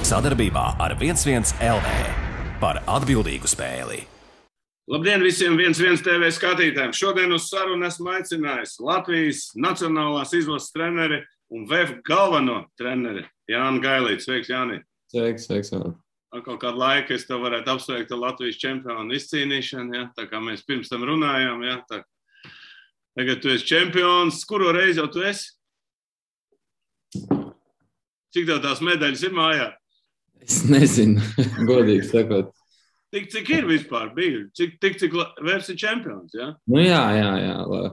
Sadarbībā ar 11 LV par atbildīgu spēli. Labdien visiem 11 TV skatītājiem! Šodien uz sarunu esmu aicinājis Latvijas nacionālās izlases treneri un VF galveno treneri Jāni Gailīti. Sveiks, Jāni! Sveiks. Atkal kādu laiku es tev varētu apsveikt ar Latvijas čempionu izcīnīšanu, ja? Tā kā mēs pirms tam runājām. Ja? Tagad tu esi čempions. Kuro reizi jau tu esi? Cik tev tās medaļas ir mājā? Es nezinu, godīgi sakot. Cik ir vispār bija? Cik vērts ir čempions, ja? Nu jā.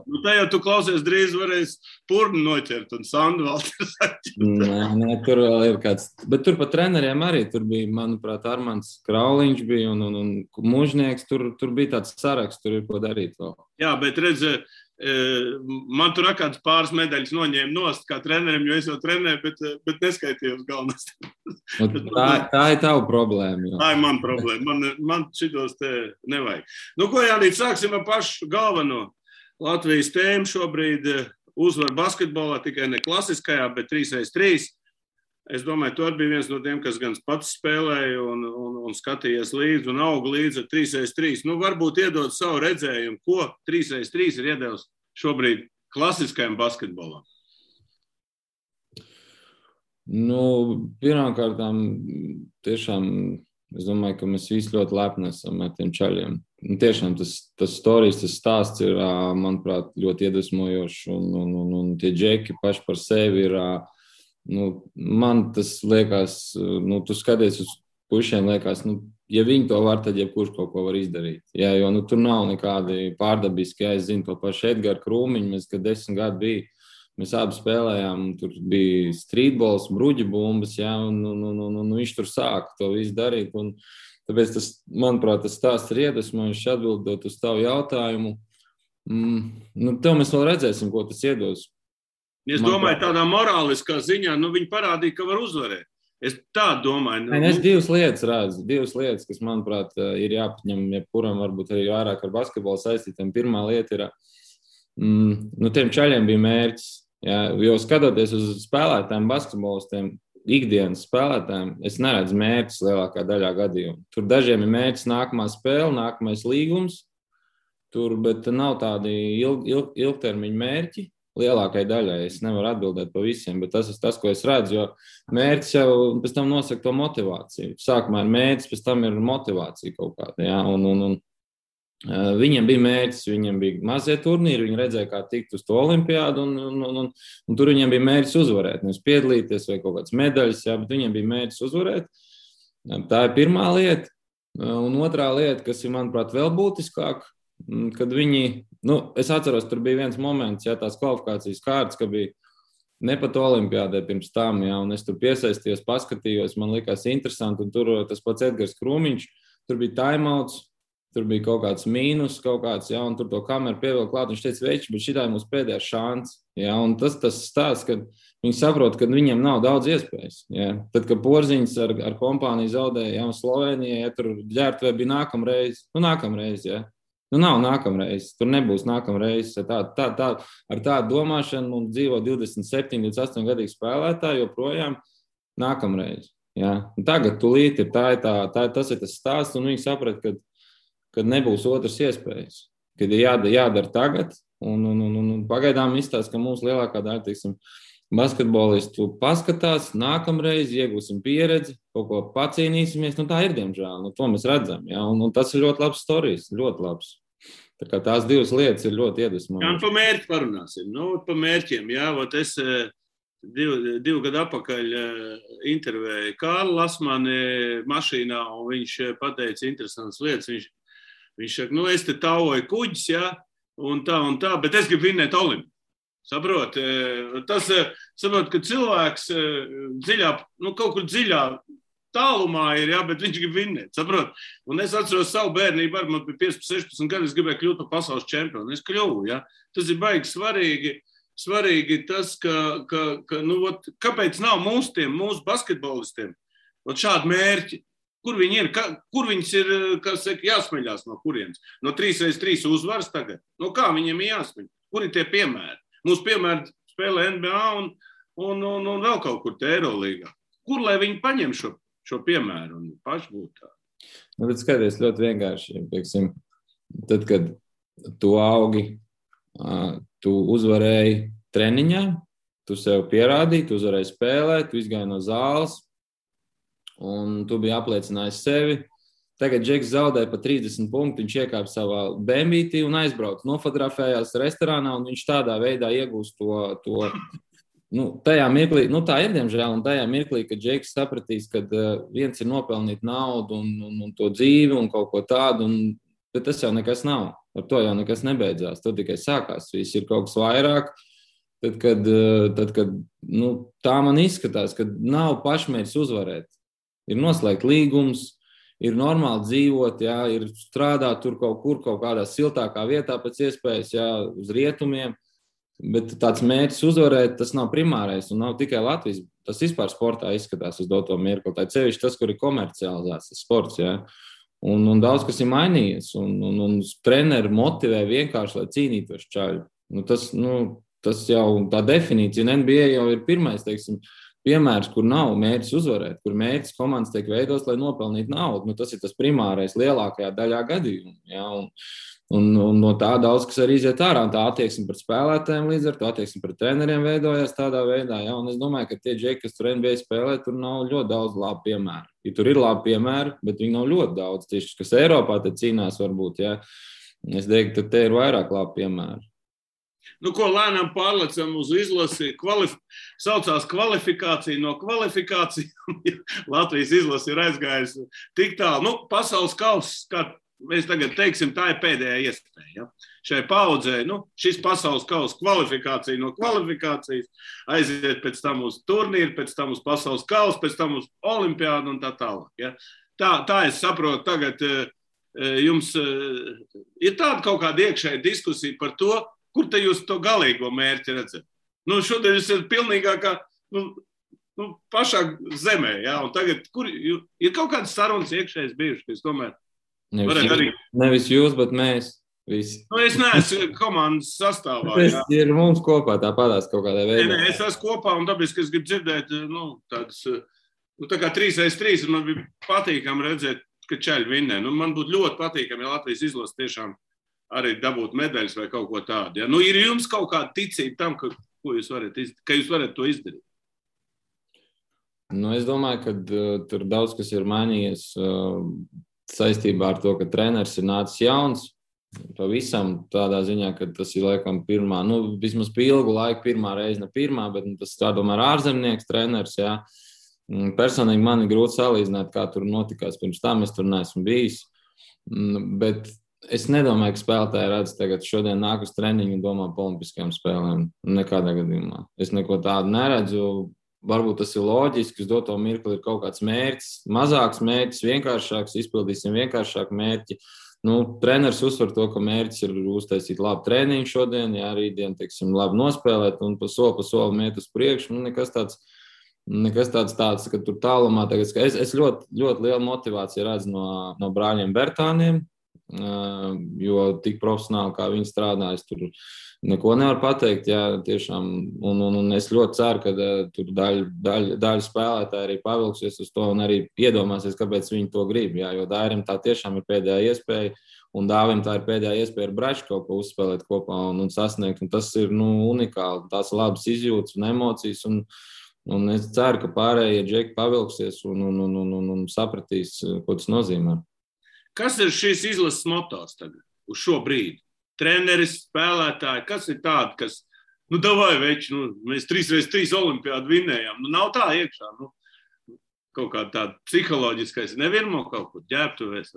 Nu tā jau tu klausies drīz varēs purnu noķert un Sandu Valters atķert. Nē, tur vēl ir kāds. Bet tur pa treneriem arī. Tur bija, manuprāt, Armands Krauliņš bija un Mužnieks. Tur bija tāds saraksts, tur ir ko darīt vēl. Jā, bet redz, man tur kāds pāris medaļas noņēma nost kā trenerim, jo es jau trenēju, bet neskaitījos galvenās. Tā ir tava problēma. Jā. Tā ir mana problēma. Man šitos te nevajag. Nu, ko Jānīt, sāksim ar pašu galveno. Latvijas tēmu šobrīd uzvar basketbolā, tikai ne klasiskajā, bet 3x3. Es domāju, tu arī biji viens no tiem, kas gan pats spēlēja un skatījies līdzi un auga līdzi ar 3x3. Nu, varbūt iedod savu redzējumu, ko 3x3 ir iedevis šobrīd klasiskajam basketbolam. Nu, pirmkārtām, tiešām, es domāju, ka mēs visi ļoti lepni esam ar tiem čaļiem. Tiešām tas storijas, tas stāsts ir, manuprāt, ļoti iedvesmojošs un tie džeki paši par sevi ir. Man tas liekas, tu skaties uz pušiem, liekas, ja viņi to var, tad jebkurš kaut ko var izdarīt. Jā, jo tur nav nekādi pārdabiski, es zinu to pašu Edgara Krūmiņu, mēs, kad 10 gadi bija, mēs abi spēlējām, tur bija streetballs, bruģi bumbas, jā, un viņš tur sāka to visu darīt, un tāpēc tas, manuprāt, tas stāsts ir iedvesmojošs atbildot uz tavu jautājumu. Tev mēs vēl redzēsim, ko tas iedos. Es domāju, tādā morāliskā ziņā, viņi parādīja, ka var uzvarēt. Es tā domāju. Es divas lietas redzu. Divas lietas, kas, manuprāt, ir jāpaņem, jebkuram varbūt arī vairāk ar basketbolu saistītiem. Pirmā lieta ir, tiem čaļiem bija mērķis. Jā, jo skatoties uz spēlētājiem, basketbolistiem, ikdienas spēlētājiem, es neredzu mērķis lielākā daļā gadījumu. Tur dažiem ir mērķis nākamā spēle, nākamais līgums, bet nav tādi ilgtermiņa mērķi. Lielākai daļai es nevaru atbildēt pa visiem, bet tas ir tas, ko es redzu, jo mērķis jau pēc tam nosaka to motivāciju. Sākumā ir mērķis, pēc tam ir motivācija kaut kāda, jā, un viņiem bija mērķis, viņiem bija mazie turnīri, viņi redzēja, kā tikt uz to olimpiādu, un tur viņiem bija mērķis uzvarēt, nevis piedalīties vai kaut kāds medaļas, jā, bet viņiem bija mērķis uzvarēt. Tā ir pirmā lieta, un otrā lieta, kas ir, manuprāt, vēl būtiskāk, kad viņi, es atceros, tur bija viens moments, jā, tās kvalifikācijas kārtas, ka bija ne pat olimpiādē pirms tam, jā, un es tur piesaistījos, paskatījos, man likās interesanti, un tur tas pats Edgars Krūmiņš, tur bija timeouts, tur bija kaut kāds mīnus, jā, un tur to kameru pievilk klāt, viņš teica, veči, bet šitā ir mūsu pēdējā šāns, jā, un tas stāsts, kad viņi saprot, ka viņiem nav daudz iespējas, jā. Tad, kad Porziņš ar kompāniju zaudēja, jā, Slovenijai, ja tur ģērbtuvē bija nākamreiz, jā. Nav nākamreiz, tur nebūs nākamreiz. Ar tādu domāšanu mums dzīvo 27, 28 gadīgi spēlētāji joprojām nākamreiz. Ja? Tagad tulīt ir tas ir tas stāsts, un viņi saprat, ka nebūs otras iespējas. Kad ir jādara tagad, un pagaidām izstāst, ka mums lielākā daļa, teiksim, basketbolistu paskatās, nākamreiz iegūsim pieredzi, kaut ko pacīnīsimies, tā ir, diemžēl, to mēs redzam, ja? un tas ir ļoti labs storijas, ļoti labs. Tā kā tās divas lietas ir ļoti iedvesmojošas. Jā, un pa mērķi parunāsim, pa mērķiem, jā, es 2 gadu atpakaļ intervēju Kārlu Lasmani mašīnā, un viņš pateica interesantas lietas, viņš saka, es te tauoju kuģis, jā, un tā, bet es gribu vinnēt Olimpu. Saprot, ka cilvēks kaut kur dziļā tālumā ir, jā, bet viņš grib vinnēt, saprot. Un es atceros savu bērnību, man bija 15-16 gadi, es gribēju kļūt par pasaules čempionu. Es kļuvu, jā. Tas ir baigi svarīgi tas, kāpēc nav mūsu basketbolistiem šādi mērķi. Kur viņi ir, kur viņas ir, jāsmeļās no kurienes? No 3x3 uzvaras tagad? Kā viņiem ir jāsmeļ? Kur ir tie piemēri? Mūsu piemēri spēlē NBA un vēl kaut kur te Eirolīgā. Kur lai viņi paņem šo piemēru un paši būt tādi. Nu, bet skaties ļoti vienkārši. Pieksim, tad, kad tu augi, tu uzvarēji treniņā, tu sev pierādīji, tu uzvarēji spēlēt, tu izgāji no zāles un tu biji apliecinājis sevi. Tagad Džeks zaudēja pa 30 punktu, viņš iekāpa savā bēmbītī un aizbrauca, nofotografējās restorānā un viņš tādā veidā iegūst to tajā mirklī, tā ir diemžēl, un tajā mirklī, kad Džeks sapratīs, ka viens ir nopelnīt naudu un to dzīvi un kaut ko tādu, bet tas jau nekas nav. Ar to jau nekas nebeidzās, to tikai sākās. Viss ir kaut kas vairāk. Tad, kad tā man izskatās, ka nav pašmērķis uzvarēt. Ir noslēgt līgums, ir normāli dzīvot, jā, ir strādāt tur kaut kādā siltākā vietā pēc iespējas, jā, uz rietumiem. Bet tāds mērķis uzvarēt, tas nav primārais un nav tikai Latvijas. Tas vispār sportā izskatās uz doto mirkli. Tā ir sevišķi tas, kur ir komercializēts tas sports, jā. Un daudz kas ir mainījies, un treneri motivē vienkārši, lai cīnītos čaļi. Tas jau tā definīcija, un NBA jau ir pirmais, teiksim, piemērs, kur nav mērķis uzvarēt, kur mērķis komandas tiek veidos, lai nopelnītu naudu. Tas ir tas primārais lielākajā daļā gadījumu, jā, un no tā daudz kas arī iziet ārā, un tā attieksme pret spēlētājiem līdz ar to attieksme pret treneriem veidojās tādā veidā, jā, un es domāju, ka tie džeki, kas tur NBA spēlē, tur nav ļoti daudz labu piemēru. Ja tur ir labi piemēri, bet viņi nav ļoti daudz, tieši, kas Eiropā te cīnās varbūt, jā. Es teiktu, ka te ir vairāk labi piemēri. Ko lēnām pārlecam uz izlasi, saucās kvalifikācija no kvalifikācijām. Latvijas izlasi ir aizgājusi tik tālu. Pasaules kauss, kā mēs tagad teiksim, tā ir pēdējā iespēja. Ja? Šai paudzē, šis pasaules kauss kvalifikācija no kvalifikācijas, aiziet pēc tam uz turnīru, pēc tam uz pasaules kauss, pēc tam uz olimpiādu un tā tālāk. Ja? Tā es saprotu, tagad jums ir tāda kaut kāda iekšēja diskusija par to, kur te jūs to galīgo mērķi redzat? Šodien jūs esat pilnīgākā pašā zemē, ja? Un tagad, kur ir kaut kādas sarunas iekšējas bijušas, es domāju, Nevis jūs, bet mēs visi. Es neesmu komandas sastāvā. Tas ir mums kopā tāpatās kaut kādā veidā. Nē, es esmu kopā un dabiski es gribu dzirdēt, tādas, tā kā 3x3, un man bija patīkami redzēt, ka čaļi vinnē. Man būtu ļoti patīkami, ja Latvijas izlase tiešām arī dabūt medaļas vai kaut ko tādu. Ja? Ir jums kaut kāda ticība tam, ka jūs varat to izdarīt? Es domāju, ka tur daudz kas ir mainījies saistībā ar to, ka treneris ir nācis jauns, pavisam tādā ziņā, ka tas ir laikam pirmā, vismaz pie ilgu laiku pirmā reize, ne pirmā, bet tas tā domāju ārzemnieks treneris, jā. Personīgi man ir grūti salīdzināt, kā tur notikās pirms tam, es tur neesmu bijis, bet es nedomāju, ka spēlētāji redz tagad šodien nāk uz treniņu un domā par olimpiskajām spēlēm, nekādā gadījumā. Es neko tādu neredzu. Varbūt tas ir loģiski, uz doto mirkli ir kaut kāds mērķis, mazāks mērķis, vienkāršāks, izpildīsim vienkāršāku mērķi. Treneris uzsver to, ka mērķis ir uztaisīt labu treniņu šodien, jā, rītdien, teiksim, labi nospēlēt un pa soli iet uz priekšu. Nekas tāds, ka tur tālumā tagad. Es ļoti, ļoti lielu motivāciju redzu no brāļiem Bertāniem, jo tik profesionāli, kā viņi strādājas, tur neko nevar pateikt, jā, tiešām, un es ļoti ceru, ka tur daļa spēlētāji arī pavilksies uz to un arī iedomāsies, kāpēc viņi to grib, jā, jo Dairim tā tiešām ir pēdējā iespēja, un Dāvim tā ir pēdējā iespēja ar Braču kaut ko uzspēlēt kopā un sasniegt, un tas ir, unikāli, tās labas izjūtas un emocijas, un es ceru, ka pārējie džeki pavilksies un sapratīs, ko tas nozīmē. Kas ir šīs izlases motos tagad, uz šo brīdi? Treneris, spēlētāji, kas ir tādi, kas, davai veči, mēs 3x3 olimpiādu vinnējām, nav tā iekšā, kaut kā tāda psiholoģiskais, nevirmo kaut kur ģērbtuvēs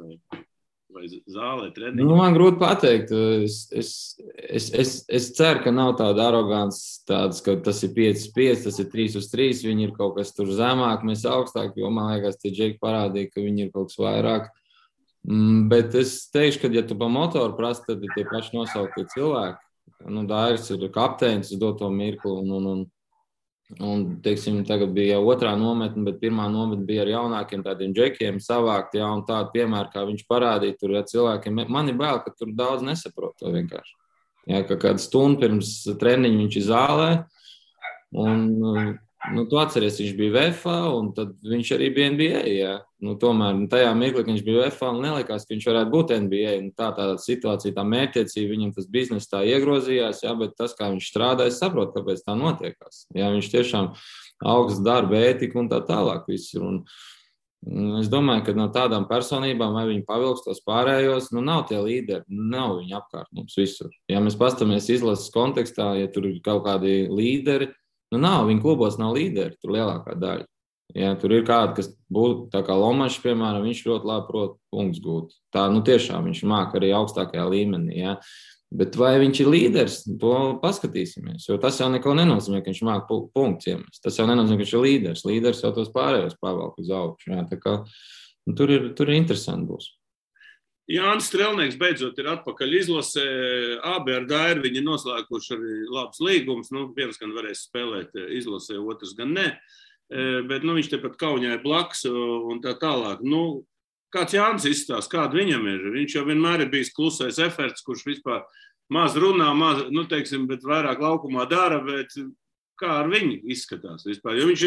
vai zālē treniņu. Man grūti pateikt, es ceru, ka nav tāda arogants tāds, ka tas ir 5x5, tas ir 3x3, viņi ir kaut kas tur zemāk, mēs augstāk, jo man liekas, tie džeki parādīja, ka viņi ir kaut kas vairāk. Bet es teikšu, ka, ja tu pa motoru prasi, tad ir tie paši nosauktie cilvēki. Dairis ir kapteinis uz doto mirkli, un teiksim, tagad bija jau otrā nometne, bet pirmā nometne bija ar jaunākiem tādiem džekiem savākt, jā, un tādu piemēru, kā viņš parādīja tur cilvēkiem. Man ir bail, ka tur daudz nesaprot to vienkārši. Jā, ka kādu stundu pirms treniņu viņš ir zālē, un tu atceries, viņš bija VFA, un tad viņš arī bija NBA. Jā. Tomēr tajā mirklī, kad viņš bija VFA, nelikās, ka viņš varētu būt NBA. Tā situācija, tā mērķtiecība, viņam tas bizness tā iegrozījās, jā, bet tas, kā viņš strādā, es saprotu, kāpēc tā notiekās. Jā, viņš tiešām augsts darba ētika un tā tālāk viss ir. Un es domāju, ka no tādām personībām, vai viņi pavilks tos pārējos, nav tie līderi, nav viņi apkārt mums visur. Ja mēs pastamies izlases kontekstā, ja tur ir kaut kādi līderi, nav, viņa klubos nav līderi, tur lielākā daļa. Ja, tur ir kādi, kas būtu, tā kā Lomašs, piemēram, viņš ļoti labi prot punktus gūt. Tā, tiešām viņš māk arī augstākajā līmenī, ja. Bet vai viņš ir līderis, to paskatīsimies, jo tas jau neko nenozīmē, ka viņš māk punktus iemest. Tas jau nenozīmē, ka viņš ir līderis. Līderis jau tos pārējos pavelk uz augšu. Ja, tā kā, tur ir interesanti būs. Jānis Strelnieks beidzot ir atpakaļ izlasē. Abi ar Dairu viņi noslēguši arī labs līgums. Viens gan varēs spēlēt izlasē, otrs gan ne. Bet viņš tepat Kaunijā ir blakus un tā tālāk. Kāds Jānis izstāsta, kāda viņam ir? Viņš jau vienmēr ir bijis klusais eferts, kurš vispār maz runā, bet vairāk laukumā dara, bet kā ar viņu izskatās vispār? Jo viņš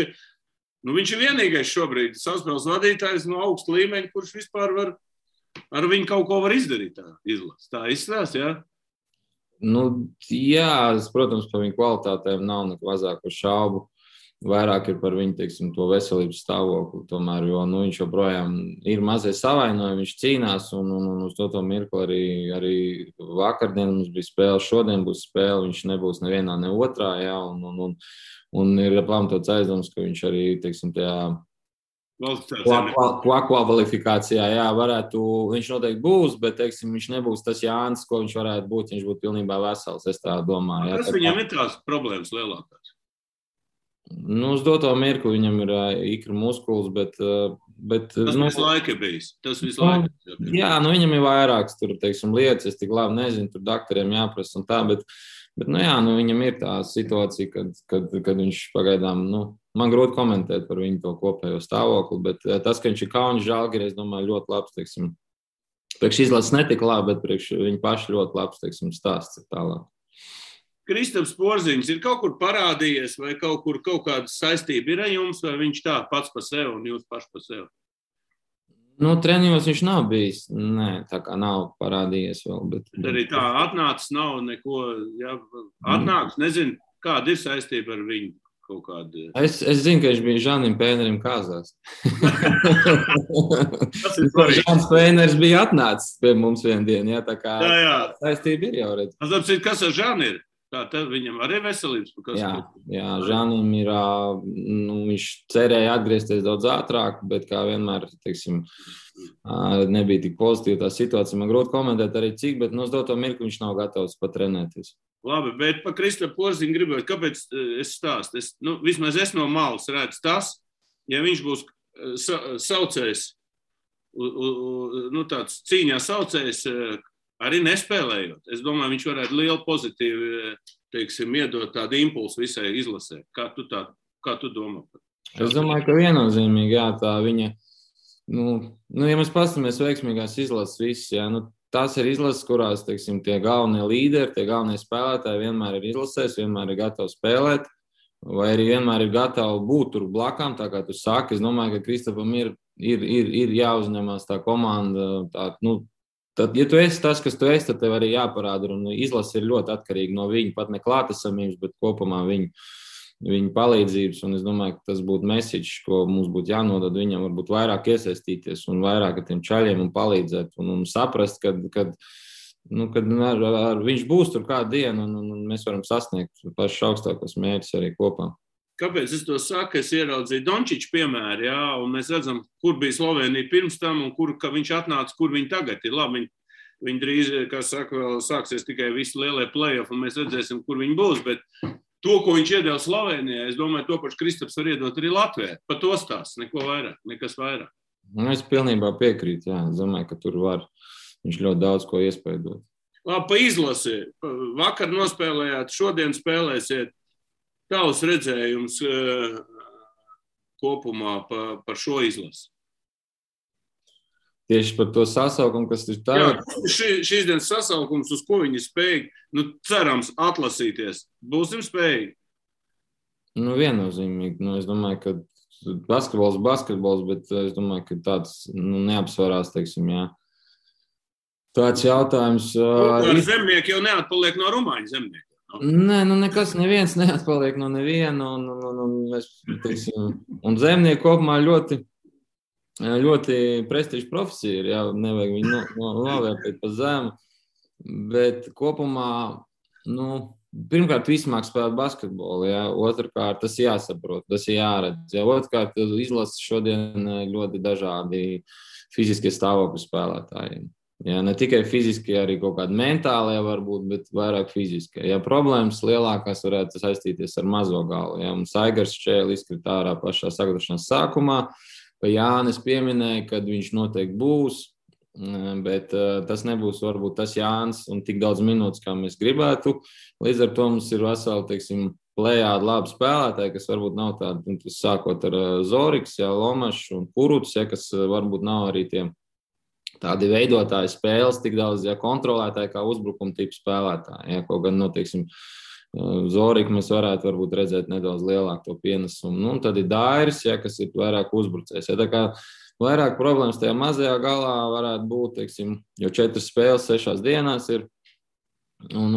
ir vienīgais šobrīd savspēles vadītājs no augsta līmeņa, kurš vispār var ar viņu kaut ko var izdarīt tā izlases. Tā izstāsta, jā? Jā, protams, par viņu kvalitātēm nav neko mazāko šaubu. Vairāk ir par viņu, teiksim, to veselības stāvokli tomēr, jo viņš joprojām ir mazliet savainojumi, viņš cīnās un uz to mirkli arī vakardien mums bija spēle, šodien būs spēle, viņš nebūs nevienā, ne otrā, jā, un ir pamatots aizdoms, ka viņš arī, teiksim, tajā kvalifikācijā, jā, viņš noteikti būs, bet, teiksim, viņš nebūs tas Jānis, ko viņš varētu būt, viņš būtu pilnībā vesels, es tā domāju. Kas viņam ir tās problēmas lielākās? Uz doto mirkli viņam ir ikra muskulis, bet tas visu laiku ir bijis. Jā, viņam ir vairākas tur, teiksim, lietas, es tik labi nezinu, tur doktoriem jāprasa un tā, bet viņam ir tā situācija, kad viņš pagaidām, man grūti komentēt par viņu to kopējo stāvokli, bet tas, ka viņš ir Kaunis Žalgiris, es domāju, ļoti labs, teiksim, priekš izlases netika labi, bet priekš viņa paši ļoti labs, teiksim, stāsts ir tālāk. Kristaps Porziņš ir kaut kur parādījies vai kaut kāda saistība ir ar jums, vai viņš tā pats pa sev un jūs paši pa sev? Treniņos viņš nav bijis. Nē, tā kā nav parādījies vēl. Bet arī tā atnācis nav neko, jā, atnācis, nezinu, kāda ir saistība ar viņu kaut kāda. Es zinu, ka viņš bija Žanim Pēnerim kāzās. Žans Pēners bija atnācis pie mums vienu dienu, jā, tā kā saistība ir jau redz. Kas ar Žani ir? Tā viņam arī veselības? Jā, Žanim ir, viņš cerēja atgriezties daudz ātrāk, bet kā vienmēr, teiksim, nebija tik pozitīva tā situācija. Man grūti komentēt arī cik, bet uz doto mirkli viņš nav gatavs pat trenēties. Labi, bet pa Kristapu Porziņu gribētu, kāpēc es stāstu? Vismaz es no malas redzu tas, ja viņš būs saucējs, tāds cīņā saucējs, arī nespēlējot. Es domāju, viņš varētu lielu pozitīvu, teiksim, iedot tādu impulsu visai izlasē. Kā tu domā? Es domāju, ka viennozīmīgi, jā, tā viņa, ja mēs pastamies veiksmīgās izlases viss, jā, tās ir izlases, kurās, teiksim, tie galvenie līderi, tie galvenie spēlētāji vienmēr ir izlasēs, vienmēr ir gatavi spēlēt, vai arī vienmēr ir gatavi būt tur blakām, tā kā tu saki. Es domāju, ka Kristapam ir jāuzņemās tā komanda, tad, ja tu esi tas, kas tu esi, tad tev arī jāparāda, un izlase ir ļoti atkarīga no viņa, pat ne klātesamības, bet kopumā viņa palīdzības, un es domāju, ka tas būtu message, ko mums būtu jānodod viņam, varbūt vairāk iesaistīties un vairāk ar tiem čaļiem un palīdzēt, un saprast, kad viņš būs tur kādu dienu, un mēs varam sasniegt pašus augstākos mērķus arī kopā. Kāpēc es to saku? Es ieraudzīju Dončiču piemēru, jā, un mēs redzam, kur bija Slovenija pirms tam un ka viņš atnāca, kur viņi tagad ir. Labi, viņi drīz, kā saka, vēl sāksies tikai visi lielie play-off, un mēs redzēsim, kur viņi būs, bet to, ko viņš iedeva Slovenijai, es domāju, to pašu Kristaps var iedot arī Latvijai. Pa to stāsts, neko vairāk, nekas vairāk. Es pilnībā piekrītu, jā. Es domāju, ka tur var viņš ļoti daudz ko iespēdot. Labi, pa izlasi. Vakar nospēlējāt, šodien spēlēsiet. Tavs redzējums kopumā par šo izlasi? Tieši par to sasaukumu, kas ir tagad? Jā, šīs dienas sasaukums, uz ko viņi spēj, cerams, atlasīties. Būsim spējīgi? Nu, viennozīmīgi. Nu, es domāju, ka basketbols, bet es domāju, ka tāds neapsvarās, teiksim, jā. Tāds jautājums. Ar zemnieku jau neatpaliek no rumāņu zemnieku. Nē, neviens neatpaliek no neviena. Un zemnieki kopumā ļoti prestiža profesija ir. Jā, nevajag viņu novērtēt pa zemu. Bet kopumā, pirmkārt, visi māk spēlēt basketbolu. Jā. Otrkārt, tas jāsaprot, tas jāredz. Jā. Otrkārt, izlases šodien ļoti dažādi fiziskie stāvokļi spēlētājiem. Jā, ne tikai fiziski, arī kaut kādi mentālie varbūt, bet vairāk fiziski. Ja problēmas lielākās varētu saistīties ar mazo galu. Ja mums Aigars Čēlis izkrita ārā pašā sagatavošanās sākumā, pa Jānis pieminēja, kad viņš noteikti būs, bet tas nebūs varbūt tas Jānis un tik daudz minūtes, kā mēs gribētu. Līdz ar to mums ir veseli, teiksim, plējādi labi spēlētāji, kas varbūt nav tādi, sākot ar Zoriks, ja, Lomašs un Kuruts, ja, kas varbūt nav arī tie tādi veidotāji spēles, tik daudz kontrolētāji kā uzbrukuma tipu spēlētāji. Ja, kaut gan, teiksim, Zoriku mēs varētu varbūt redzēt nedaudz lielāku to pienesumu. Un tad ir Dairis, ja, kas ir vairāk uzbrucējs. Ja, tā kā vairāk problēmas tajā mazajā galā varētu būt, teiksim, jo 4 spēles 6 dienās ir. Un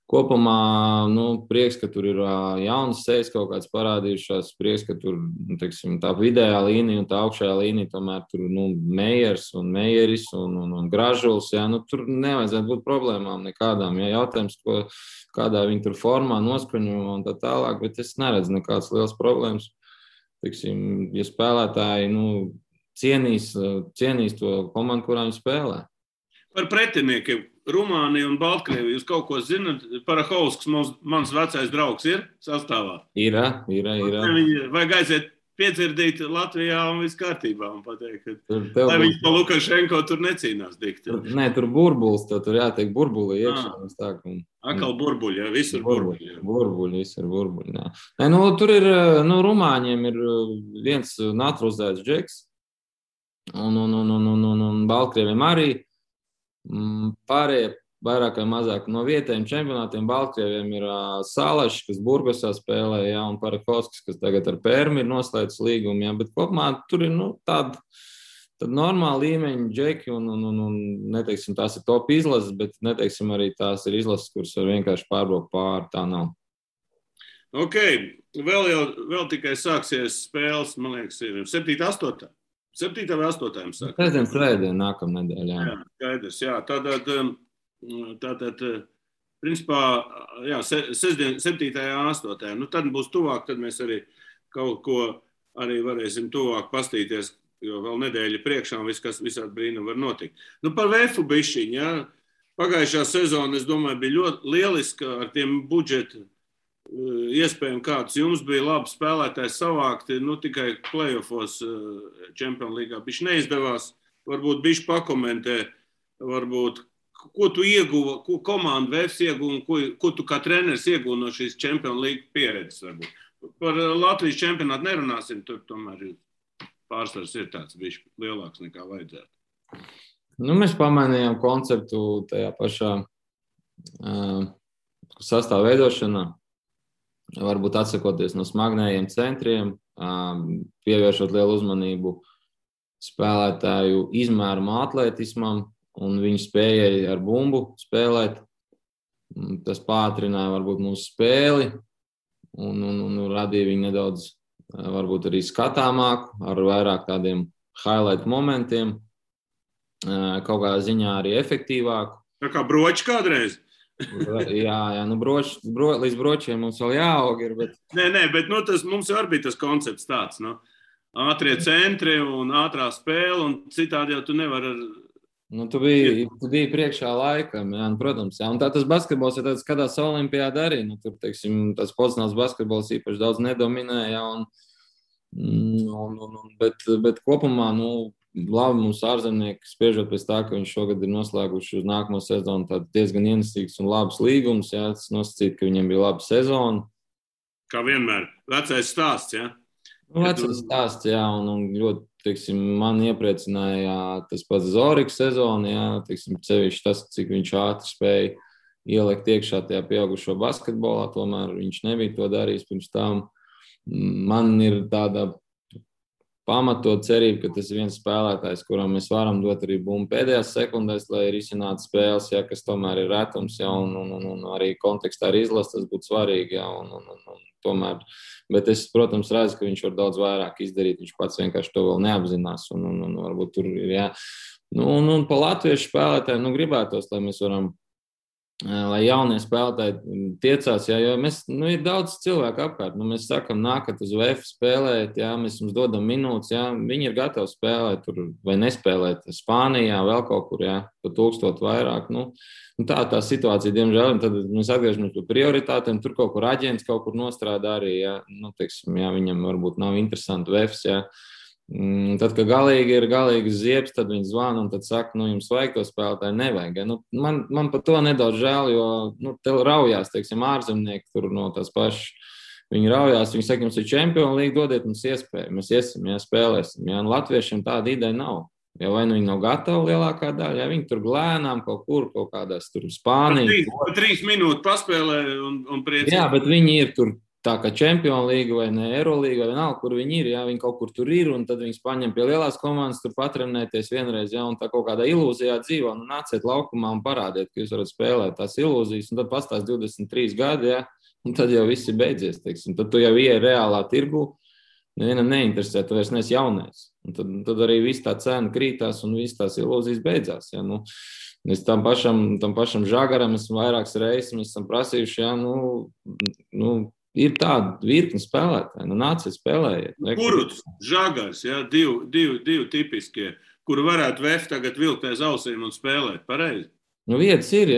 kopumā, prieks, ka tur ir jaunas sejas kaut kāds parādījušās, prieks, ka tur, teiksim, tā vidējā līnija un tā augšējā līnija tomēr tur, Meijers un Meijeris un Gražuls, jā, tur nevajadzētu būt problēmām nekādām, jā, jautājums, kādā viņi tur formā noskaņo un tā tālāk, bet es neredzu nekādas liels problēmas, teiksim, ja spēlētāji, cienīs to komandu, kurā viņi spēlē. Par pretiniekiem. Rumānija un Baltkrievija, jūs kaut ko zināt? Parahausks, mans vecais draugs, ir sastāvā? Ir. Vajag aiziet piedzirdīt Latvijā un viss kārtībā un pateikt, ka lai viņš pa Lukašenko tur necīnās dikti. Nē, tur burbulis, tur jātiek burbuli iekšā. Akal burbuļi, jā, visur burbuļi. Burbuļi, visur burbuļi, jā. Nē, tur ir, Rumāņiem ir viens naturalizēts džeks un Baltkrieviem arī. Pārējie vairāk vai mazāk no vietējiem čempionātiem Baltkrieviem ir Salašs, kas Burgosā spēlē, jā, un Parakovskis, kas tagad ar Pērmi ir noslēdzis līgumu, jā, bet kopumā tur ir tāda normāla līmeņa džeki un neteiksim, tās ir top izlases, bet neteiksim arī tās ir izlases, kuras var vienkārši pārbraukt pāri, tā nav. Ok, vēl tikai sāksies spēles, man liekas, ir 7. 8. 7. vai 8. jums saka? Pēdējiem svētdien, nākamā nedēļā. Jā, skaidrs, jā. Tātad, principā, jā, 7. 8. Tad būs tuvāk, tad mēs arī kaut ko arī varēsim tuvāk pastīties, jo vēl nedēļa priekšā un visādi brīnumi var notikt. Par VF bišķiņu, jā. Pagājušā sezona, es domāju, bija ļoti lieliska ar tiem budžetu iespējami kāds jums bija labi spēlētāji savākti, tikai playoffos Champions Leagueā bišķi neizdevās, varbūt bišķi pakomentē, varbūt, ko tu ieguva, ko komanda VFs ieguva un ko tu kā treneris ieguva no šīs Champions League pieredzes varbūt. Par Latvijas čempionātu nerunāsim, tur tomēr pārsvars ir tāds bišķi lielāks nekā vajadzētu. Mēs pamainījām konceptu tajā pašā sastāvu veidošanā. Varbūt atsakoties no smagnējiem centriem, pievēršot lielu uzmanību spēlētāju izmērumu atletismam un viņu spējai ar bumbu spēlēt. Tas pātrināja varbūt mūsu spēli un radīja viņu nedaudz varbūt arī skatāmāku, ar vairāk tādiem highlight momentiem, kaut kādā ziņā arī efektīvāku. Tā kā broči kādreiz? Jā, līdz bročiem mums vēl jāaug ir, bet... Nē, bet tas mums jau arī bija tas koncepts tāds, ātrie centri un ātrā spēle, un citādi jau tu nevar ar... Tu biji priekšā laikam, jā, protams, jā, un tas basketbols, ja tāds skatās olimpiāda arī, tur, teiksim, tas pozicionāls basketbols īpaši daudz nedominē, jā, bet kopumā, labi mums ārzemnieki, spriežot pēc tā, ka viņš šogad ir noslēguši uz nākamo sezonu tādu diezgan ienesīgs un labs līgums, jā, tas nosacīt, ka viņiem bija laba sezona. Kā vienmēr, vecais stāsts, jā? Vecais stāsts, jā, un ļoti, teiksim, man iepriecināja tas pats Zoriks sezona, jā, teiksim, sevišķi tas, cik viņš ātri spēja ielikt iekšā tajā pieaugušo basketbolā, tomēr viņš nebija to darījis pirms tam. Man ir tāda pamatot cerība, ka tas ir viens spēlētājs, kuram mēs varam dot arī bumbu pēdējās sekundēs, lai risinātu spēles, ja, kas tomēr ir retums, ja, un arī kontekstā ar izlases tas būtu svarīgi. Ja, un tomēr, bet es, protams, redzu, ka viņš var daudz vairāk izdarīt, viņš pats vienkārši to vēl neapzinās, un varbūt tur ir, ja. Un pa latviešu spēlētājiem, gribētos, lai mēs varam, lai jaunie spēlētāji tiecās, ja, jo mēs, ir daudz cilvēku apkārt, mēs sakam, nākat uz VF spēlēt, ja, mēs jums dodam minūtes, ja, viņi ir gatavi spēlēt tur vai nespēlēt Spānijā, vēl kaut kur, ja, pa 1000 vairāk, tā situācija, diemžēl, un tad mēs atgriežamies pie prioritātēm, tur kaut kur aģents kaut kur nostrādā arī, ja, teiksim, ja, viņam varbūt nav interesanti VFs, ja. Tad, kad galīgi ir galīgas ziepes, tad viņi zvana un tad saka, jums vajag to spēlētāju, nevajag. Ja? Man par to nedaudz žēl, jo te raujās, teiksim, ārzemnieki tur no tās pašas. Viņi raujās, viņi saka, jums ir Champions League, dodiet mums iespēju, mēs iesim, ja, spēlēsim. Ja? Un latviešiem tāda ideja nav. Ja vai viņi nav gatavi lielākā daļa, ja viņi tur glēnām kaut kur, kaut kādās tur Spānijā. Pa 3 minūtes paspēlē un priecīgi. Jā, bet viņi ir tur. Tā kā Champions League vai ne Eurolīga vai vienalga, kur viņi ir, ja viņi kaut kur tur ir, un tad viņus paņem pie lielās komandas, tur patrenēties vienreiz, ja, un tā kaut kādā ilūzijā dzīvo, nāciet laukumā un parādiet, ka jūs varat spēlēt tās ilūzijas, un tad pastās 23 gadi, ja, un tad jau viss ir beidzies, teiksim. Tad tu jau ieej reālā tirgu, nevienam neinteresē, tu vairs neesi jaunais. Un tad arī viss tā cena krītās un viss tās ilūzijas beidzās, ja, Es tam pašam Žagaram esmu vairākas reizes, mēs esam prasījuši, ja, ir tāda virkne spēlētāji, nāciet spēlējiet. Kuruts, Žagars, ja, divi tipiskie, kuri varētu VF tagad vilkt aiz ausīm un spēlēt, pareizi? Vietas ir,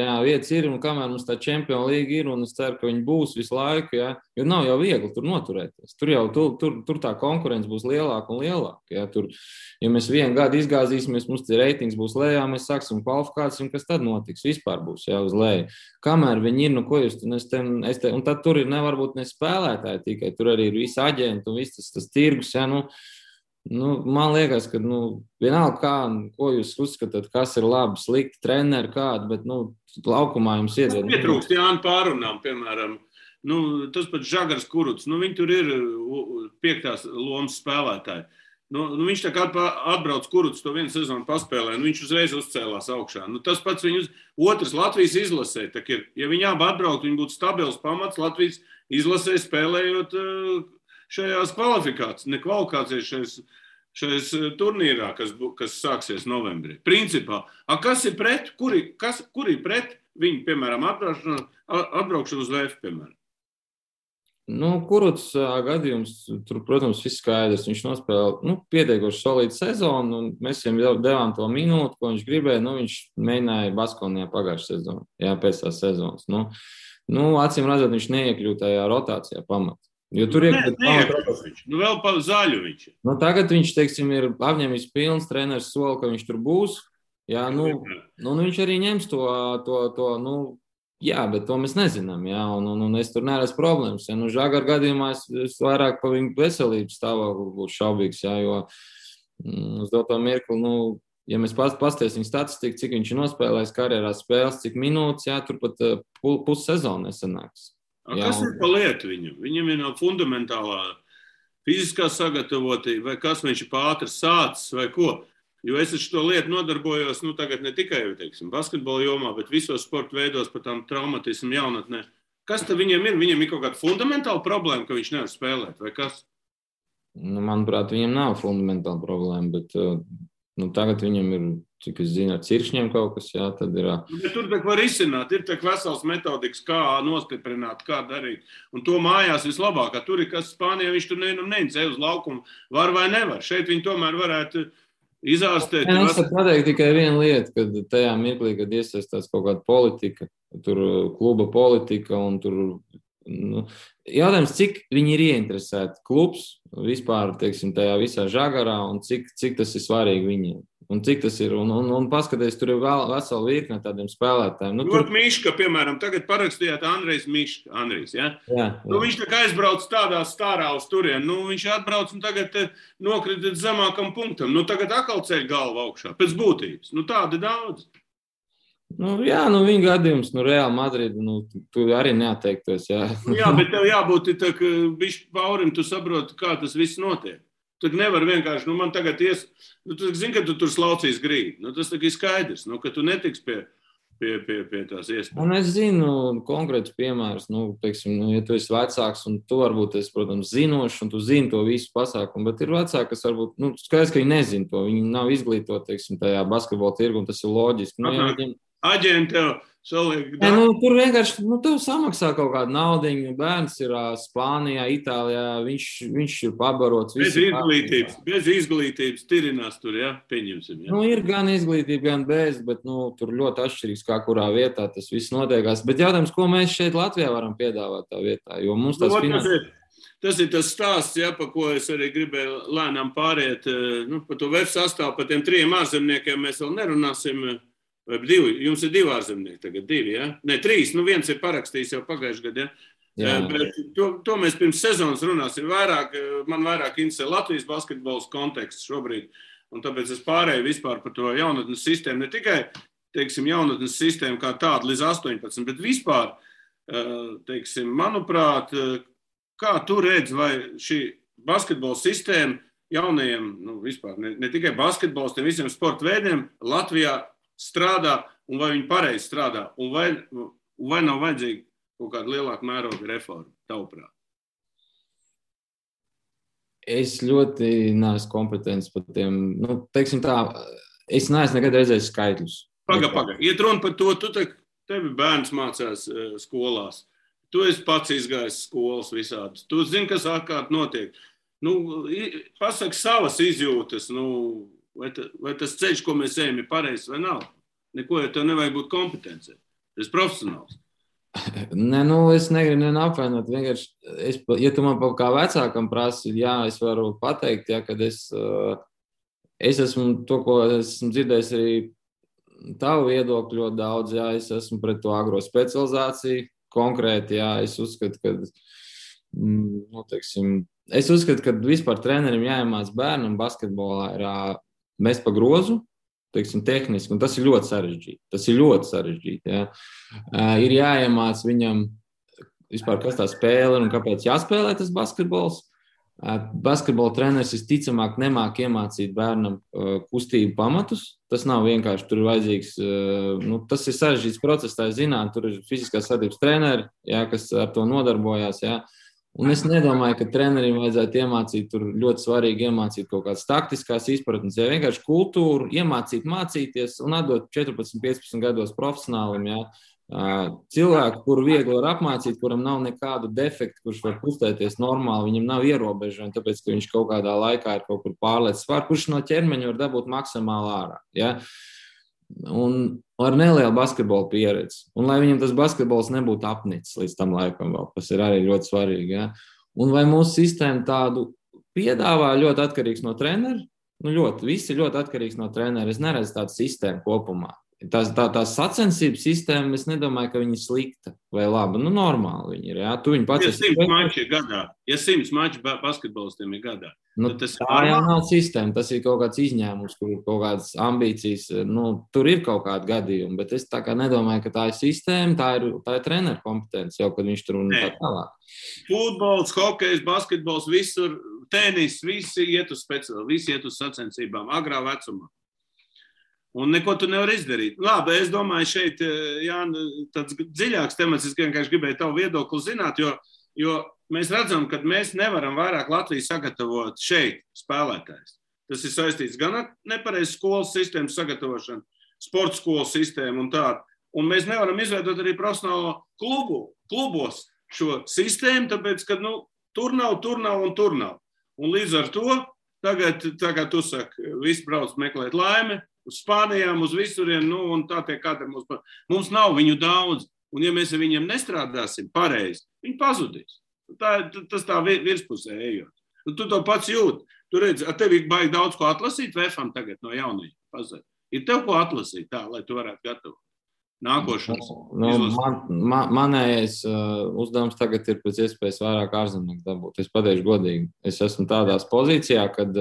un kamēr mums tā Champions League ir, un es ceru, ka viņi būs visu laiku, ja, jo nav jau viegli tur noturēties. Tur tā konkurence būs lielāka un lielāka. Ja, ja mēs vienu gadu izgāzīsimies, mums tie reitings būs lejā, mēs sāksim kvalifikāciju, un kas tad notiks? Vispār būs, ja, uz leju. Kamēr viņi ir, ko jūs, un tad tur ir nevarbūt ne spēlētāji tikai, tur arī ir visi aģenti un viss tas tirgus, ja, man liekas, ka vienalga, ko jūs uzskatāt, kas ir labi, slikti, treneri kādi, bet laukumā jums iedod. Pietrūkst Jāni pārunām, piemēram, tas pats Žagars Kuruts, viņi tur ir 5. lomas spēlētāji. Viņš tā kā atbrauc Kuruts to vienu sezonu paspēlē, viņš uzreiz uzcēlās augšā. Tas pats viņus otrs Latvijas izlasē, tā ir, ja viņi abi atbraukt, viņi būtu stabils pamats Latvijas izlasē spēlējot šajās kvalifikācijas, šajās turnīrā, kas sāksies novembrī. Principā, kas ir pret, kuri pret viņu, piemēram, atbraukšanu uz VF, piemēram? Kuruts gadījums, tur, protams, viss skaidrs. Viņš nospēlēja pietiekoši solīdu sezonu, un mēs viņam devām to minūti, ko viņš gribēja. Viņš mēģināja Baskonijā pagājušā sezonu, pēc tās sezonas. Acīm redzot, viņš neiekļūt tajā rotācijā pamatā. Jo tur vēl pa zaļu viņš. Tagad viņš, teiksim, ir apņēmis pilns treneris soli, ka viņš tur būs. Jā, viņš arī ņems to, bet to mēs nezinām, jā, un es tur neredzu problēmas. Ja, Žagar gadījumā es vairāk pa viņu veselības stāvokli būtu šaubīgs, jā, jo uz doto mirkli, ja mēs pastiesim statistiku, cik viņš ir nospēlējis karjerā spēles, cik minūtes, jā, tur pat pussezonu nesanāks. Kas ir pa lietu viņam? Viņam ir fundamentālā fiziskā sagatavotība, vai kas viņš ir pātri sācis, vai ko? Jo es ar šo lietu nodarbojos, tagad ne tikai, teiksim, basketbola jomā, bet visos sporta veidos par tām traumatismu jaunatnē. Kas tad viņam ir? Viņam ir kaut kāda fundamentāla problēma, ka viņš nevar spēlēt, vai kas? Manuprāt, viņam nav fundamentāla problēma, bet tagad viņam ir, cik es zinu, ar cirkšņiem kaut kas, jā, tad ir. Bet tur tak var izsināt, ir tak vesels metodikas, kā nostiprināt, kā darīt. Un to mājās vislabāk, tur ir, kas Spānijā viņš tur neincē uz laukumu, var vai nevar. Šeit viņi tomēr varētu izārstēt. Es varu pateikt tikai vienu lietu, kad tajā mirklī, kad iesaistās kaut kāda politika, tur kluba politika un tur, jautājums, cik viņi ir ieinteresēti klubs vispār, teiksim, tajā visā Žagarā un cik tas ir svarīgi viņiem. Un cik tas ir, un paskaties, tur ir vesela virkne tādiem spēlētājiem. Tur Miška, piemēram, tagad parakstījāt Andrijs, ja? Jā. Viņš tā kā aizbrauc tādā stārā uz turien, viņš atbrauc un tagad nokrita zemākam punktam. Tagad atkal ceļ galvu augšā, pēc būtības. Tādi daudz. Jā, viņa gadījums, Real Madrid, tu arī neatteiktos, jā. Jā, bet tev jābūt tā, ka bišķi paurim, tu saproti, kā tas viss notiek. Tu nevar vienkārši, man tagad tu zini, ka tu tur slaucīs grīdu. Tas tā ir skaidrs, ka tu netiks pie tās iespējas. Es zinu konkrētus piemērus, teiksim, ja tu esi vecāks un tu varbūt esi, protams, zinošs un tu zini to visu pasākumu, bet ir vecāki, kas varbūt, skaidrs, ka viņi nezina to, viņi nav izglītoti, teiksim, tajā basketbola tirgu un tas ir loģiski. Aģenti tev saliek. Tur vienkārši, tev samaksā kaut kādu naudiņu, bērns ir Spānijā, Itālijā, viņš ir pabarots. Bez izglītības tirinās tur, pieņemsim. Ir gan izglītība, gan bez, bet, tur ļoti atšķirīgs, kā kurā vietā tas viss notiekās. Bet jautājums, ko mēs šeit Latvijā varam piedāvāt tā vietā, jo mums tas Tas ir tas stāsts, pa ko es arī gribēju lēnām pāriet, par to web sastāvu, par tiem 3 ārzemniekiem mēs vēl nerunāsim. Vai 2? Jums ir 2 ārzemnieki tagad, 2, ja? Ne, 3, viens ir parakstījis jau pagājušajā gadā, ja? Bet to mēs pirms sezonas runāsim man vairāk interesē Latvijas basketbols konteksts šobrīd, un tāpēc es pārēju vispār par to jaunatnes sistēmu, ne tikai, teiksim, jaunatnes sistēmu kā tādu līdz 18, bet vispār, teiksim, manuprāt, kā tu redz, vai šī basketbola sistēma jaunajiem, vispār, ne tikai basketbols, tiem visiem sporta veidiem Latvijā strādā, un vai viņi pareizi strādā, un vai nav vajadzīga kaut kāda lielāka mēroga reforma, tavuprāt? Es ļoti neesmu kompetents par tiem, teiksim tā, es neesmu nekad redzējis skaitļus. Paga. Iet runa par to, tevi bērns mācās skolās, tu esi pats izgājis skolas visādas, tu zini, kas ārkārt notiek. Pasaki savas izjūtas, vai tas ceļš, ko mēs ejam, ir pareizs vai nav? Neko, ja tev nevajag būt kompetencē. Tas ir profesionāls. Nē, es negribu apvainot. Vienkārši, ja tu man kā vecākam prasi, jā, es varu pateikt, kad es esmu to, ko esmu dzirdējis arī tavu viedokļu ļoti daudz, jā, es esmu pret to agro specializāciju. Konkrēti, jā, es uzskatu, ka vispār trenerim jāiemāc bērnam basketbolā ir mest pa grozu, teiksim, tehniski, un tas ir ļoti sarežģīti. Ja. Ir jāiemāc viņam vispār, kas tā spēle ir un kāpēc jāspēlē tas basketbols. Basketbola treneris visticamāk nemāk iemācīt bērnam kustību pamatus. Tas nav vienkārši, tur ir vajadzīgs, tas ir sarežģīts process, tā zināt, tur ir fiziskās vadības treneri, ja, kas ar to nodarbojās, ja. Un es nedomāju, ka trenerim vajadzētu iemācīt, tur ļoti svarīgi iemācīt kaut kādas taktiskās izpratnes, ja vienkārši kultūru iemācīt, mācīties un atdot 14-15 gados profesionālim, ja, cilvēku, kuru viegli var apmācīt, kuram nav nekādu defektu, kurš var kustēties normāli, viņam nav ierobežojumi, tāpēc, ka viņš kaut kādā laikā ir kaut kur pārliecis svāru, kurš no ķermeņa var dabūt maksimāli ārā, ja. Un ar nelielu basketbolu pieredzi. Un lai viņam tas basketbols nebūtu apnicis līdz tam laikam vēl, tas ir arī ļoti svarīgi. Ja? Un vai mūsu sistēma tādu piedāvā ļoti atkarīgs no trenera? Viss ir ļoti atkarīgs no trenera. Es neredzu tādu sistēmu kopumā. Tā sacensības sistēma, es nedomāju, ka viņa ir slikta vai laba. Normāli viņa ir. Ja? Tu viņu pats esi 100 mači gadā. Ja 100 mači basketbolistiem ir gadā. Tā jau nav sistēma. Tas ir kaut kāds izņēmums, kur ir kaut kādas ambīcijas. Tur ir kaut kādi gadījumi, bet es tā kā nedomāju, ka tā ir sistēma, tā ir treneru kompetence, jau kad viņš tur un tā tālāk. Futbols, hokejs, basketbols, visur, tenis, visi iet uz speciāli, visi iet uz sacensībām, agrā vecumā. Un neko tu nevar izdarīt. Labi, es domāju, šeit, Jāni, tāds dziļāks temats, es vienkārši gribēju tavu viedokli zināt, jo mēs redzam, ka mēs nevaram vairāk Latviju sagatavot šeit spēlētājs. Tas ir saistīts gan ar nepareizu skolas sistēmu sagatavošanu, sporta skolas sistēmu un tādu. Un mēs nevaram izveidot arī profesionālo klubos šo sistēmu, tāpēc, ka tur nav. Un līdz ar to tagad, tā kā tu saki, visi brauc meklēt laimi, uz Spānijām, uz visuriem, un tā tiek katra mums nav viņu daudz, un ja mēs ar viņiem nestrādāsim pareizi, viņi pazudīs. Tas tā virspusē ejot. Un tu to pats jūti. Tu redzi, ar tevi baigi daudz ko atlasīt VFam tagad no jaunajiem. Pazar. Ir tev ko atlasīt tā, lai tu varētu gatavot nākošanas. Manējais uzdevums tagad ir pēc iespējas vairāk ārzemnieku dabūt. Es pateikšu godīgi. Es esmu tādās pozīcijā, kad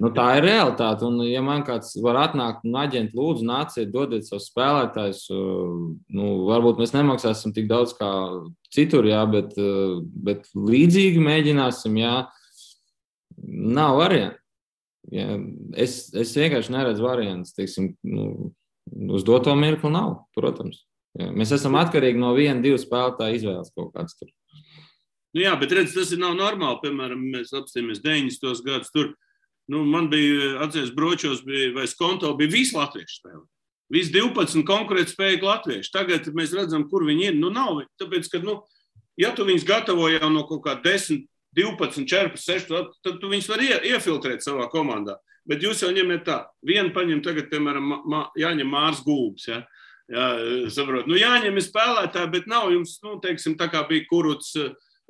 Tā ir realitāte. Un, ja man kāds var atnākt un aģenti lūdzu, nāciet, dodiet savus spēlētājus, varbūt mēs nemaksāsim tik daudz kā citur, jā, bet līdzīgi mēģināsim, jā, nav variantu. Jā. Es vienkārši neredzu variantus, teiksim, uz doto mirkli nav, protams. Jā. Mēs esam atkarīgi no 1-2 spēlētāju izvēles kaut kāds tur. Jā, bet redz, tas nav normāli. Piemēram, mēs apstāmies 90. gadus tur. Man bija, atceries, Bročos vai Skonto bija visi latviešu spēlē. Visi 12 konkurētspējīgi latvieši. Tagad mēs redzam, kur viņi ir. Nav. Tāpēc, ka, ja tu viņus gatavo jau no kaut kā 10, 12, 14, 6, tad tu viņus var iefiltrēt savā komandā. Bet jūs jau ņemiet tā. Vienu paņem tagad, piemēram, jāņem Mārs Gulbs, ja? Jā, saprot. Jāņem ir spēlētāji, bet nav jums, teiksim, tā kā bija Kuruts,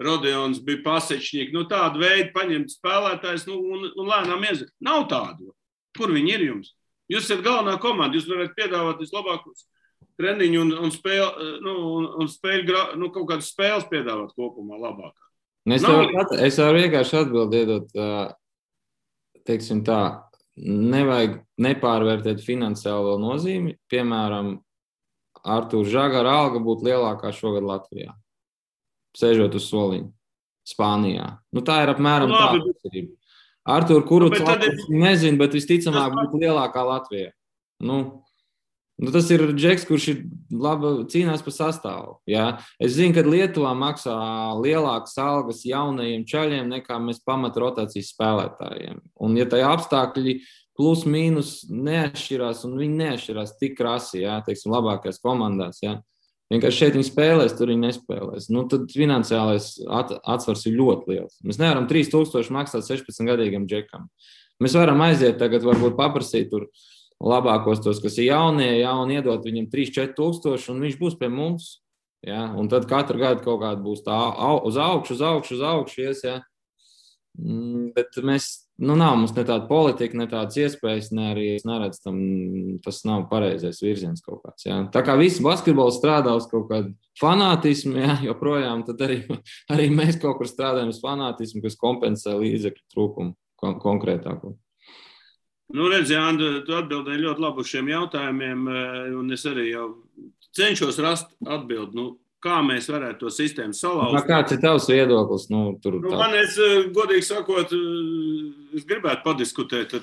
Rodeons, bija Pasečņīgi, tādu veidu paņemt spēlētājs, un lēnām iezīt. Nav tādu. Kur viņi ir jums? Jūs esat galvenā komanda, jūs varat piedāvāt vislabākos treniņu un spēļu, kaut kādas spēles piedāvāt kopumā labākā. Es varu vienkārši atbildēt, teiksim tā, nevajag nepārvērtēt finansiālo nozīmi. Piemēram, Artūra Žagara alga būtu lielākā šogad Latvijā. Sēžot uz soliņa Spānijā. Tā ir apmēram tāda atšķirība. Artūra Kuruts nezinu, bet visticamāk būtu lielākā Latvijā. Tas ir džeks, kurš ir labi cīnās par sastāvu. Jā. Es zinu, ka Lietuvā maksā lielākas algas jaunajiem čaļiem nekā mēs pamat rotācijas spēlētājiem. Un ja tajā apstākļi plus mīnus neatšķirās, un viņi neatšķirās tik krasi, jā, teiksim, labākajās komandās, jā. Vienkārši šeit viņi spēlēs, tur viņi nespēlēs. Tad finansiālais atsvars ir ļoti liels. Mēs nevaram 3000 maksāt 16-gadīgam džekam. Mēs varam aiziet tagad, varbūt paprasīt tur labākos tos, kas ir jaunie, un iedot viņam 3-4 tūkstoši, un viņš būs pie mums. Ja? Un tad katru gadu kaut kāda būs tā uz augšu ies. Ja? Bet mēs, nav mums ne tāda politika, ne tādas iespējas, ne arī es neredzu tam, tas nav pareizais virziens kaut kāds. Ja? Tā kā visi basketboli strādā uz kaut kādu fanātismu, ja? Joprojām, tad arī mēs kaut kur strādājam uz fanātismu, kas kompensē līdzekļu trūkumu konkrētāko. Redz, Jāni, tu atbildēji ļoti labi uz šiem jautājumiem, un es arī jau cenšos rast atbildi, kā mēs varētu to sistēmu salauzt. Kāds ir tavs viedoklis? Man, godīgi sakot, es gribētu padiskutēt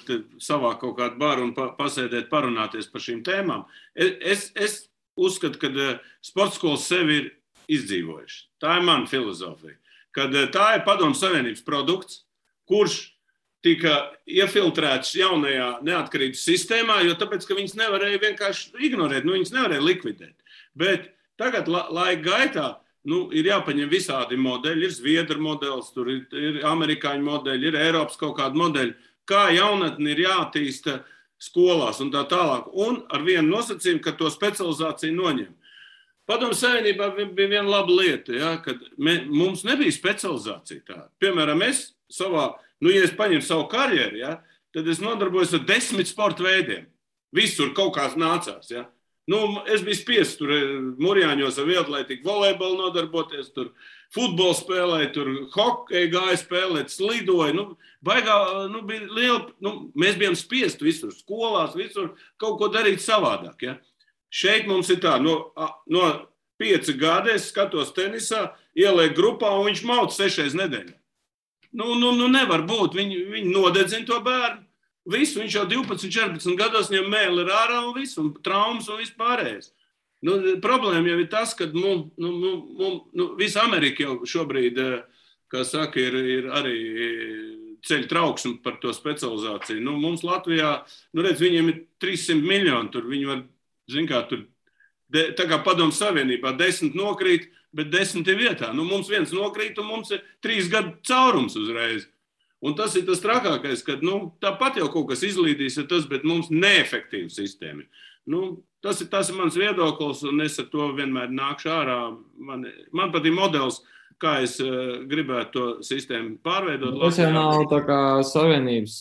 savā kaut kādu baru un pasēdēt, parunāties par šīm tēmām. Es uzskatu, ka sporta skolas sevi ir izdzīvojuši. Tā ir mana filozofija. Kad tā ir Padomju Savienības produkts, kurš tika iefiltrēts jaunajā neatkarības sistēmā, jo tāpēc, ka viņas nevarēja vienkārši ignorēt, viņas nevarēja likvidēt. Bet tagad laika gaitā ir jāpaņem visādi modeļi, ir Zviedru modelis, tur ir amerikāņu modeļi, ir Eiropas kaut kādi modeļi, kā jaunatni ir jātīsta skolās un tā tālāk. Un ar vienu nosacījumu, ka to specializāciju noņem. Padomju Savienībā bija viena laba lieta, ja, kad mums nebija specializācija tāda. Piemēram, es savā, ja es paņemu savu karjeru, ja, tad es nodarbojos ar 10 sporta veidiem. Visur kaut kāds nācās, ja. Es biju spiests tur Murjāņos ar vieglatlētiku, volejbolu nodarboties, tur futbolu spēlēju, tur hokeju gāju spēlēt, slidoju. Bija liela, mēs bijām spiesti visur, skolās, visur kaut ko darīt savādāk. Ja? Šeit mums ir tā, no 5 gadi es skatos tenisā, ieliek grupā un viņš mauc 6 nedēļā. Nevar būt, viņi nodedzina to bērnu. Visu, viņš jau 12, 14 gados viņam mēli ir ārā un visu, un traumas un viss pārējais. Problēma jau ir tas, ka visa Amerika jau šobrīd, kā saka, ir arī ceļ trauksmi par to specializāciju. Mums Latvijā, redz, viņiem ir 300 miljoni, tur viņi var, tur, tā kā Padomju Savienībā 10 nokrīt, bet 10 ir vietā. Mums viens nokrīt un mums ir 3 gadu caurums uzreiz. Un tas ir tas trakākais, ka tāpat jau kaut kas izlīdīs, bet mums neefektīva sistēma. Tas ir mans viedoklis, un es ar to vienmēr nākšu ārā. Man patīk modelis, kā es gribētu to sistēmu pārveidot. Tas jau nav tā kā Savienības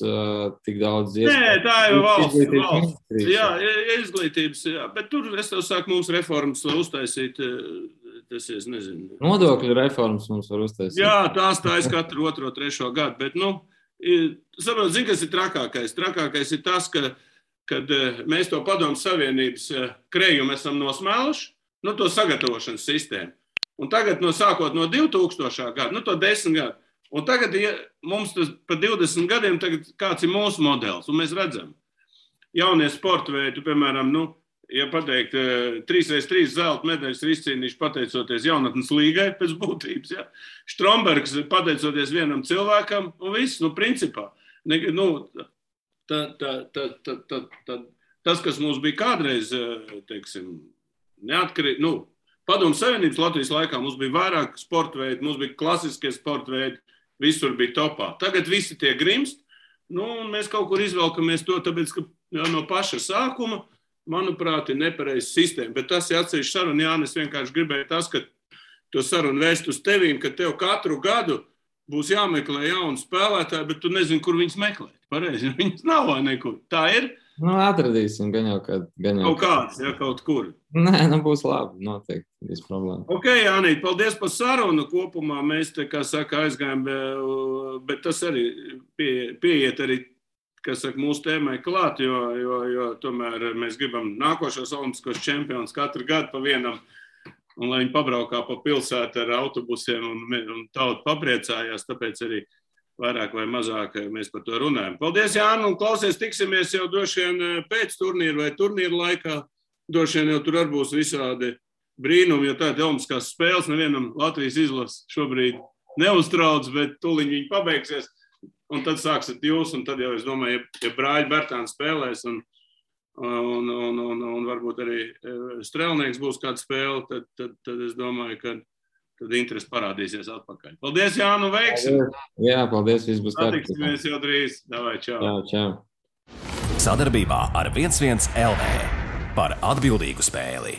tik daudz iespēju. Nē, tā ir valsts. Jā, izglītības, jā, bet tur es tev saku, mums reformas var uztaisīt. Tas es nezinu. Nodokļu reformas mums var uztaisīt. Jā, tās katru 2, 3 gadu, bet Saprot, zini, kas ir trakākais? Trakākais ir tas, kad mēs to Padomju Savienības krējumu esam nosmēluši, to sagatavošanas sistēmu. Un tagad sākot no 2000. Gada, to 10 gadu. Un tagad mums tas pa 20 gadiem tagad kāds ir mūsu modelis. Un mēs redzam, jaunie sporta veidi, piemēram, ja pateikt, 3x3 zelta medaļas ir izcīnījuši pateicoties jaunatnes līgai pēc būtības. Ja? Strombergs pateicoties vienam cilvēkam un viss, principā. Tas, kas mums bija kādreiz, teiksim, neatkarīgi, Padomju Savienības Latvijas laikā mums bija vairāk sporta veidi, mums bija klasiskie sporta veidi, visur bija topā. Tagad visi tie grimst, un mēs kaut kur izvelkamies to, tāpēc, ka no paša sākuma, manuprāt, ir nepareiza sistēma. Bet tas ir atsevišķi saruna, Jānis, vienkārši gribēja tas, ka to sarunu vēst uz tevīm, ka tev katru gadu būs jāmeklē jauni spēlētāji, bet tu nezini, kur viņus meklēt. Pareizi, viņas nav vai nekur. Tā ir? Atradīsim, gan jau kaut kāds, ja kaut kur. Nē, būs labi, noteikti, viss problēma. Ok, Jānīt, paldies par sarunu. Kopumā mēs te, kā saka, aizgājām, bet tas arī pieiet arī, kas saka, mūsu tēmai klāt, jo tomēr mēs gribam nākošos olimpiskos čempionus katru gadu pa vienam, un lai viņi pabraukā pa pilsētu ar autobusiem un tauta papriecājās, tāpēc arī vairāk vai mazāk mēs par to runājam. Paldies, Jāni, un klausies, tiksimies jau droši vien pēc turnīra vai turnīra laikā. Droši vien jau tur arī būs visādi brīnumi, jo tādi olimpiskās spēles nevienam Latvijas izlases šobrīd neuztrauc, bet tuliņ viņi pabeigsies, un tad sāksiet jūs, un tad jau es domāju, ja brāļi Bertāni spēlēs, un varbūt arī strēlnieks būs kāda spēle, tad es domāju, ka tad interesi parādīsies atpakaļ. Paldies, Jānu, veiksim! Jā, paldies, viss būs kārtībā. Satiksimies jau drīz. Davai, čau! Čau! Sadarbībā ar 11 LV par atbildīgu spēli.